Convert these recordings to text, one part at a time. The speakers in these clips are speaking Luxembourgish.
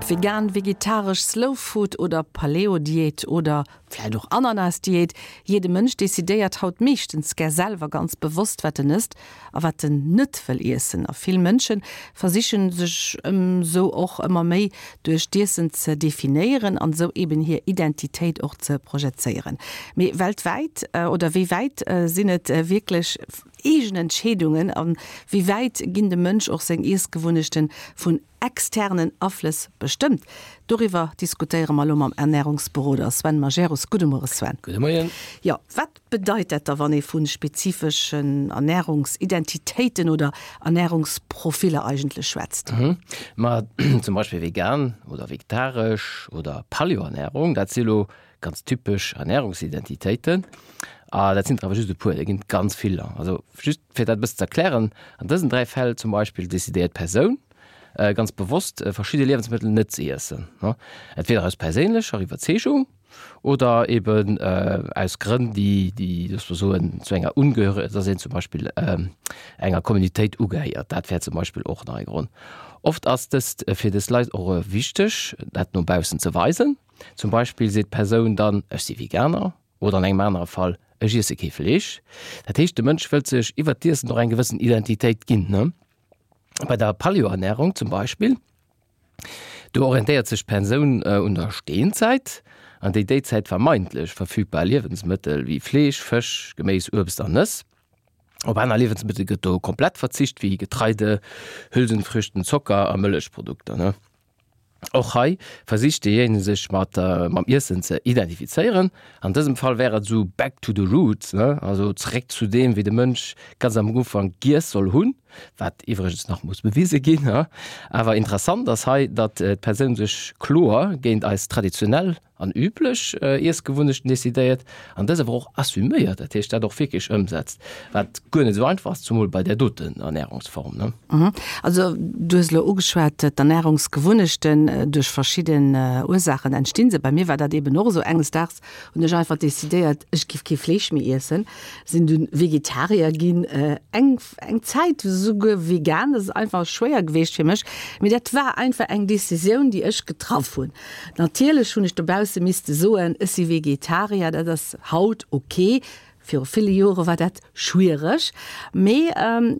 Ob vegan, vegetaresch, Slow Food oder Paleo-Diät oder vläit och Ananas-Diät, jidde Mënsch decidéiert haut meeschtens gär selwer ganz bewosst wat en ësst a wat en net wëll iessen. A vill Mënsche versichen sech esou och ëmmer méi duerch d'Iessen ze definéieren an esou eben hir Identitéit och ze projezéieren. Mee weltwäit oder wéi wäit sinn et wierklech eegen Entscheedungen a wéi wäit ginn dem Mënsch och seng Iessgewunnechten vun externen Aflëss bestëmmt? Doriwwer diskutéiere mer elo mam Ernärungsberoder Sven Majerus. Gudde Muere Sven. Gudde Moien. Jo, wat bedeit dat da wann ee vu spezifeschen Ernärungsidentitéiten oder Ernärungsprofiller eigentlech schwätzt? Ma zum Beispill vegan oder vegetaresch oder Paleo-Ernärung, dat si lo ganz typesch Ernärungsidentitéiten. A dat sinn der awer just e puer, der ginn et ganz viller. Also just fir dat e bëssen ze erklären, an dësen 3 Fäll zum Beispill decidéiert d'Persoun ganz bewosst verschidde Liewensmëttel net ze iessen, entweder aus perséinlecher Iwwerzeegung oder eben aus Grënn, déi, déi loosse mer soen, zu enger Ungehöre, dass een zum Beispill enger Communautéit ugehéiert. Dat wär zum Beispill och nach e Grond. Oft ass dëst fir dës Leit och wichteg, dat no baussen ze weisen. Zum Beispill seet d'Persoun dann, Ech si Veganer oder an engem anere Fall, Ech iesse kee Fleesch. Dat heescht, de Mënsch wëllt sech iwwert d'Iessen och eng gewëssen Identitéit ginn. Bei der Paleo-Ernärung zum Beispill, do orientéiert sech d'Persoun un der Steenzäit, an déi déizäit vermeintlech verfügbar Liewensmëttel wéi Fleesch, Fësch, Geméis, Uebst an Nëss. Op aner Liewensmëttel gëtt do komplett verzicht, wéi Getreide, Hülsenfrüchten, Zocker a Mëllechprodukter. Och hei versicht deejéinege sech mat mam Iessen ze identifizéieren. An dësem Fall wär et esou back to the roots, ne, also zeréck zu deem, wéi de Mënsch ganz am Ufank giess soll hunn, wat iwwregens nach muss bewise ginn. Awer interessant ass hei, datt d'Persoun sech kloer géint eis traditionell an üblech Iessgewunnechten decidéiert an dës awer och assuméiert, dat heescht dat och wierklech ëmsetzt, wat guer net esou einfach ass, zumol bei där doten Ernärungsform, ne? Also du hues elo ugeschwat, d'Ernärungsgewunnechten, duerch verschidden Ursaachen entstinn se. Bei mir war dat eben och esou, enges Daags hunn ech einfach decidéiert, ech giff kee Fleesch méi iessen, sinn dunn Vegetarier ginn, eng eng Zäit esouguer vegan, dat ass einfach schwéier geweecht fir mech, mee dat war einfach eng Decisioun, déi ech getraff hunn. Natierlech hunn ech dobausse misste soen, ech si Vegetarier, dat ass haut ok, viru ville Jore war dat schwiereg, mee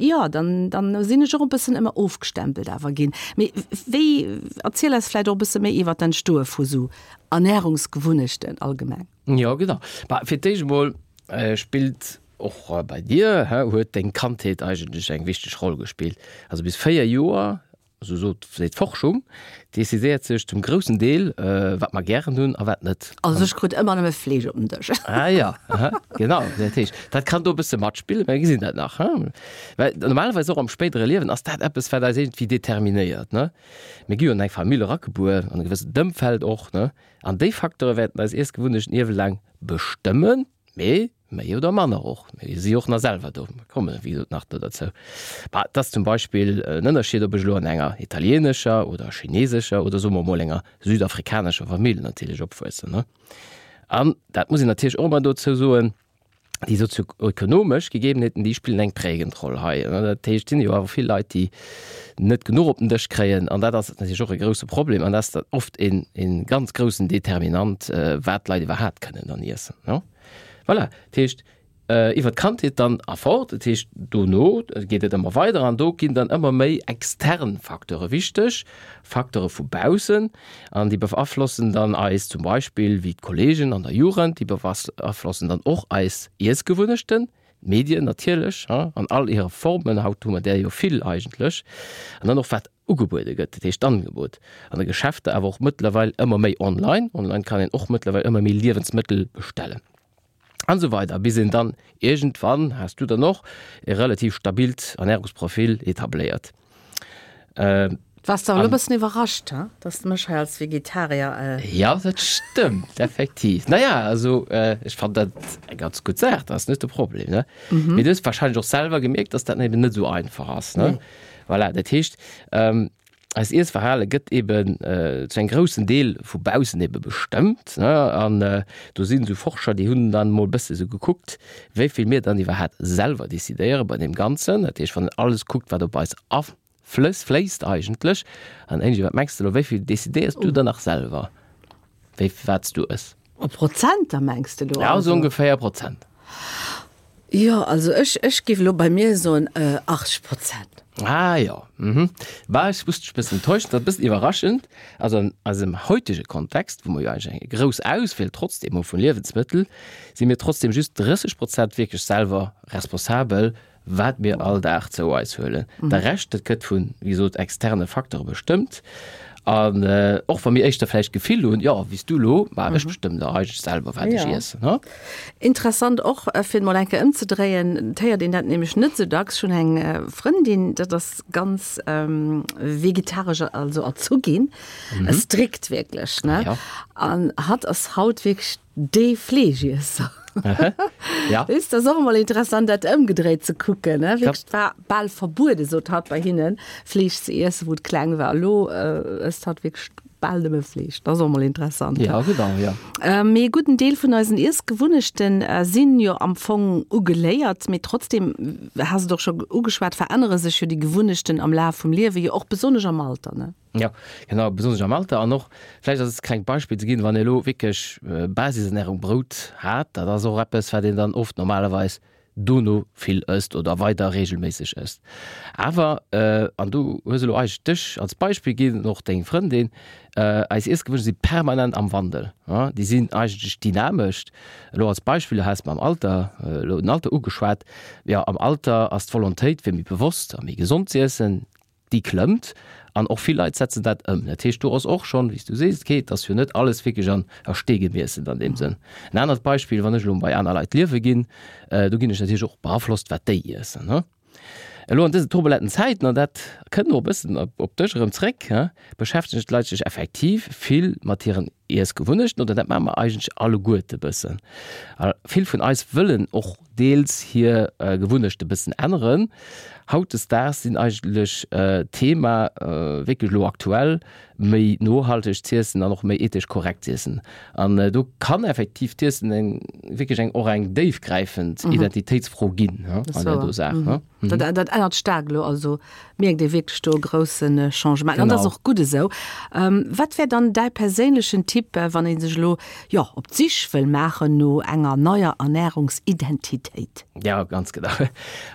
jo, dann dann sinn ech och e bëssen ëmmer ofgestempelt awer ginn. Mee wéi, erziel eis vläicht och e bësse méi iwwer d'Entstoe vu sou Ernärungsgewunnechten allgemeng. Jo, genau. Bah, fir d'éischt emol spillt och bei dir, huet deng Kandheet eigentlech eng wichteg Roll gespillt. Also bis 4 Joer esou sot seet d'Forschung, decidéiert sech zum groussen Deel, wat mer gären hunn a wat net. Also ech krut ëmmer nëmme Fleesch op den Dësch. Ah ja, aha, genau. Dat heescht, dat kann do e bësse matspillen, mä mir gesinn dat nach, hein. Well normalerweis och am spéidere Liewen ass dat eppes, wat eis iergendwéi determinéiert, ne. Mir gi jo an eng Famill eragebuer, an e gewëssent Ëmfeld och, ne. An déi Facteure wäerten eis Iessgewunnechten iewelaang bestëmmen. Mee méi oder manner och. Mir si och nach selwer do. Mir komme wéi gesot nach do derzou. Bah, et ass zum Beispill en Ënnerscheed, ob ech elo an enger italienescher oder chinesescher oder soe mer emol enger südafrikanescher Famill natierlech opwuessen, ne? An dat muss een natierlech och ëmmer dozou soen, déi sozioökonomesch Gegebenheeten, déi spillen eng prägend Roll hei. Dat heescht, et sinn jo awer vill Leit, déi net genuch op den Dësch kréien an dat ass natierlech och e grousse Problem an dat ass dann oft een een ganz groussen Determinant, wat d'Leit iwwerhaapt kënnen dann iessen, ne? Voilà, dat heescht iwwer d'Kandheet dann a fort, dat heescht dono geet et ëmmer weider an do ginn dann ëmmer méi extern Facteure wichteg, Facteure vu baussen an déi beaflossen dann eis zum Beispill wéi d'Kollegen an der Jugend, déi beaflossen dann och eis Iessgewunnechten, D'Medien natierlech, an all hire Formen, haut hu mer där jo vill eigentlech, an dann och wat ugebuede gëtt, dat heescht d'Angebot an de Geschäfter, awer och mëttlerweil ëmmer méi online. Online kann een och mëttlerweil ëmmer méi Liewensmëttel bestellen an esou weider, bis een dann iergendwann, has du dann och, e relativ stabilt Ernärungsprofil etabléiert. Wars de awer elo e bëssen iwwerrascht, he, dass de mech hei als Vegetarier. Jo, dat stëmmt effektiv. Naja, also ech fannen dat eng ganz gutt Saach, dat ass net de Problem, ne? Mee du hues warscheinlech och selwer gemierkt, dass dat eben net esou einfach ass, ne? Voilà, dat heescht, eist Iessverhale gëtt eben zu engem groussen Deel vu baussen ebe bestëmmt, ne? An do sinn esou Forscher, déi hunn dann emol e bësse sou gekuckt, wéi vill mir dann iwwerhaapt selwer decidéiere bei deem Ganzen. Dat heescht, wann een alles kuckt, wat op eis. Flëss, fléisst eigentlech. An Angie, wat mengs de elo, wéi vill decidéiers du dann nach selwer, wéi, wat s du ëss? A Prozenter mengs de elo? Ja, esou ongeféier Prozent. Jo, also ech, ech géif elo bei mir soen 80 Prozent. Ah jo, mhm. Bah, ech muss dech e bëssen enttäuschen, dat ass e bëssen iwwerraschend. Also an eisem heutege Kontext, wou mer jo eigentlech eng grouss Auswiel trotzdem hu vu Liewensmëttel, si mir trotzdem just 30 Prozent wierklech selwer responsabel wat mir all Dag zou eis huelen. De Rescht, dat gëtt vun, wéi gesot, externe Facteure bestëmmt. An och wa mir éischter vläicht d'Gefill hunn, jo, wéi s du elo, ma ech bestëmmen dach eigentlech selwer, wat ech iessen, ha? Interessant och, fir et mol eng Kéier ëmzedréien, et héiert een dat nämlech net esou dacks. Ech hunn eng Frëndin, dat ass ganz vegetaresch, also erzu ginn, strikt wierklech, ne? An hatt ass haut wierklech Dee Fleeschiesser. Ja. Weess, dat ass och emol interessant, dat ëmgedréit ze kucken, ne? Wierklech, et war bal verbuede, sot hatt, bei hinnen, Fleesch ze iessen, wou et kleng war. Elo ësst hatt wierklech bal nëmme Fleesch. Dat ass och emol interessant. Ja, genau, ja. Mee e gudden Deel vun eisen Iessgewunnechte sinn jo am Fong ugeléiert. Mee trotzdem, has et och scho ugeschwat, verännere sech jo déi Gewunnechten am Laf vum Liewe, jo och besonnesch am Alter, ne? Jo, genau, besonnesch am Alter. An och, vläicht als klengt Beispill ze ginn, wann ee elo wierklech Basisernährung, Brout hat, dat ass och eppes, wat een dann oft normalerweis dono vill ësst oder weider reegelméisseg ësst. Awer, an do hues elo eigentlech dech als Beispill ginn an och deng Frëndin, eis Iessgewunnechte si permanent am Wandel, déi sinn eigentlech dynamesch. Elo als Beispill, du has mam Alter, elo den Alter ugeschwat, jo, am Alter ass d'Volontéit fir méi bewosst a méi gesond z'iessen, déi klëmmt an och vill Leit setzen dat ëm. Dat heescht, do ass och schonn, wéi s du sees, okay, et ass jo net alles wierklech an a Stee gemeesselt an deem Sënn. En anert Beispill, wann ech elo bei aner Leit liewe ginn, do ginn ech natierlech och beaflosst, wat déi iessen, ne. Elo an dësen turbulenten Zäiten, an dat kënnt och e bëssen op dech erëm zréck, beschäftegen d'Leit sech effektiv vill mat hiren Iessgewunnechten, oder dat maache mer eigentlech alleguerte bëssen. A vill vun eis wëllen och deels hir Gewunnechte bëssen änneren. Hautdesdaags sinn eigentlech d'Thema wierklech elo aktuell, méi nohalteg z'iessen an och méi ethesch korrekt z'iessen. An do kann effektiv d'Iessen eng wierklech eng och eng déifgräifend Identitéitsfro ginn an där do Saach. Dat dat ännert staark elo, also mierkt ee wierklech do e grousse Changement. An dat ass och gutt esou. Wat wär dann däi perséinlechen Tipp, wann ee sech elo, jo, op d'Sich wëll maachen no enger neier Ernärungsidentitéit? Ja, ganz genau.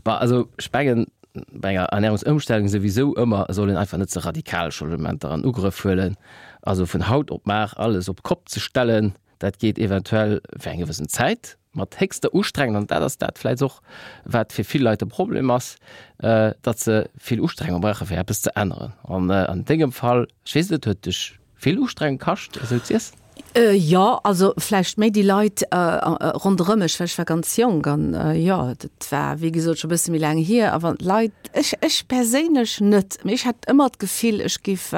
Bah, also ech mengen, bei enger Ernärungsëmstellung souwisou ëmmer, et soll een einfach net ze radikal Changementer an Ugrëff huelen. Also vun haut op mar alles op d'Kopp ze stellen, dat geet eventuell fir eng gewëssen Zäit mat héchster Ustrengung, an dat ass dat vläicht och, wat fir vill Leit de Problem ass, datt se vill Ustrengung brauche fir eppes ze änneren. An an dengem Fall, ech weess net, huet dech vill Ustrengung kascht, esou z'iessen? Jo, also vläicht méi déi Leit ronderëm mech, well ech war ganz jonk an jo, dat war wéi gesot scho e bësse méi laang hier. A wann d'Leit, ech ech perséinlech net, mee ech hat ëmmer d'Gefill, ech géif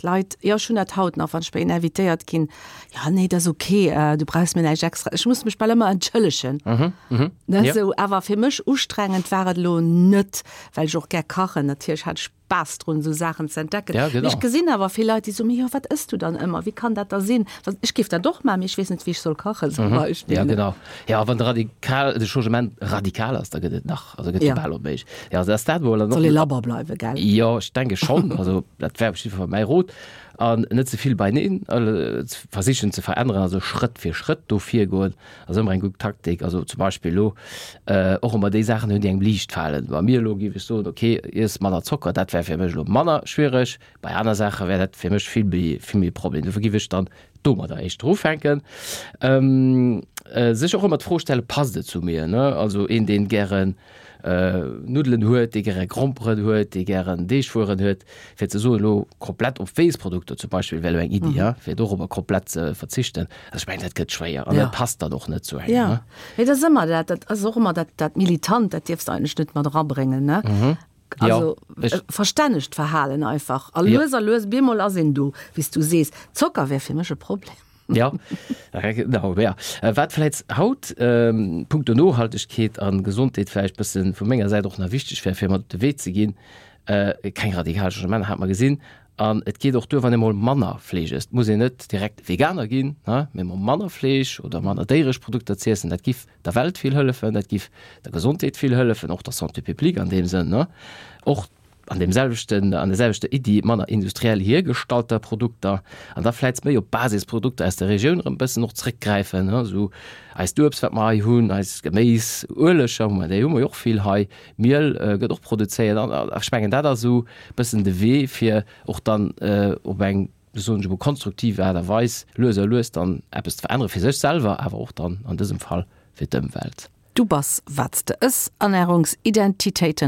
d'Leit, jo ech hunn dat haut nach, wann ech bei een invitéiert ginn, jo nee, dat ass ok, du brauchs mir näischt extra, ech muss mech bal ëmmer entschëllegen, ne, esou. Awer fir mech ustrengend war et elo net, well ech och gär kachen, natierlech hat ech Spaass drun, esou Saachen ze entdecken. Ja, genau. Mee ech gesinn awer vill Leit, déi soen, mee jo, wat ëss du dann ëmmer? Wéi kann dat da sinn? Wa ech géif dat och maachen, mee ech weess net, wéi ech soll kachen, zum Beispill. Ja, genau. Ja, wann de radikal, de Changement radikal ass, da gëtt et nach, also gëtt Ja. jo bal onméiglech. Ja, also ass dat mol an Soll ee labber bleiwen, gell? Jo, ech denke schonn. Also dat wär op jidde Fall mäi Rot. An net ze vill beineen versichen ze veränneren, also Schrëtt fir Schrëtt do virgoen. Ass ëmmer eng gutt Taktik. Also zum Beispill elo och ëmmer déi Saachen hunn, déi engem liicht falen. Bei mir elo géif ech soen, okay, iess manner Zocker, dat wär fir mech elo manner schwiereg. Bei aner Saache wär dat fir mech vill méi, vill méi e Problem. Dofir géif ech dann domadder éischter ufänken. Sech och ëmmer d'Fro stellen, passt et zu mir, ne? Also een, deen gären Nuddelen huet, dee gäre Gromperen huet, dee gären Deegwueren huet, fir ze soen, elo komplett op Weessprodukter zum Beispill wär elo eng Iddi, ja, fir dorobber komplett ze verzichten. Also ech mengen, dat gëtt schwéier an dat passt dann och net zu engem. Ja, mee dat ass ëmmer dat, dat ass och ëmmer dat, dat Militant, dat dierfs de eigentlech net mat erabréngen, ne? Also verstännegt Verhalen einfach. A lues a lues, bemol ass een do, wéi s du sees. Zocker wär fir mech e Problem. Ja, genau, ja. Wat vläicht haut punkto Nohaltegkeet a Gesondheet vläicht bësse vu menger Säit och nach wichteg wär, fir mat op de Wee ze ginn, keng radikal Changementer, hat mer gesinn. An et geet och duer, wann ee mol manner Fleesch ësst. Et muss een net direkt Veganer ginn, mee mol manner Fleesch oder manner déieresch Produkter z'iessen, dat giff der Welt vill hëllefen, dat giff der Gesondheet vill hëllefen, och der Santé publique an deem Sënn, och. An deem selwechten, an der selwechter Iddi, manner industriell hiergestallter Produkter an da vläicht méi op Basisprodukter aus der Regioun erëm e bëssen och zréckgräifen, esou eist Uebst, wat mer hei hunn, eis Geméis, Ueleger hu mer, déi hu mer jo och vill hei, Miel gëtt och produzéiert an ech mengen, dat ass esou e bëssen de Wee, fir och dann op eng, soen ech emol, konstruktiv Aart a Weis lues a lues dann eppes ze verännere fir sech selwer, awer och dann an dësem Fall fir d'Ëmwelt. Du bass wat s de ëss, Ernärungsidentitéiten.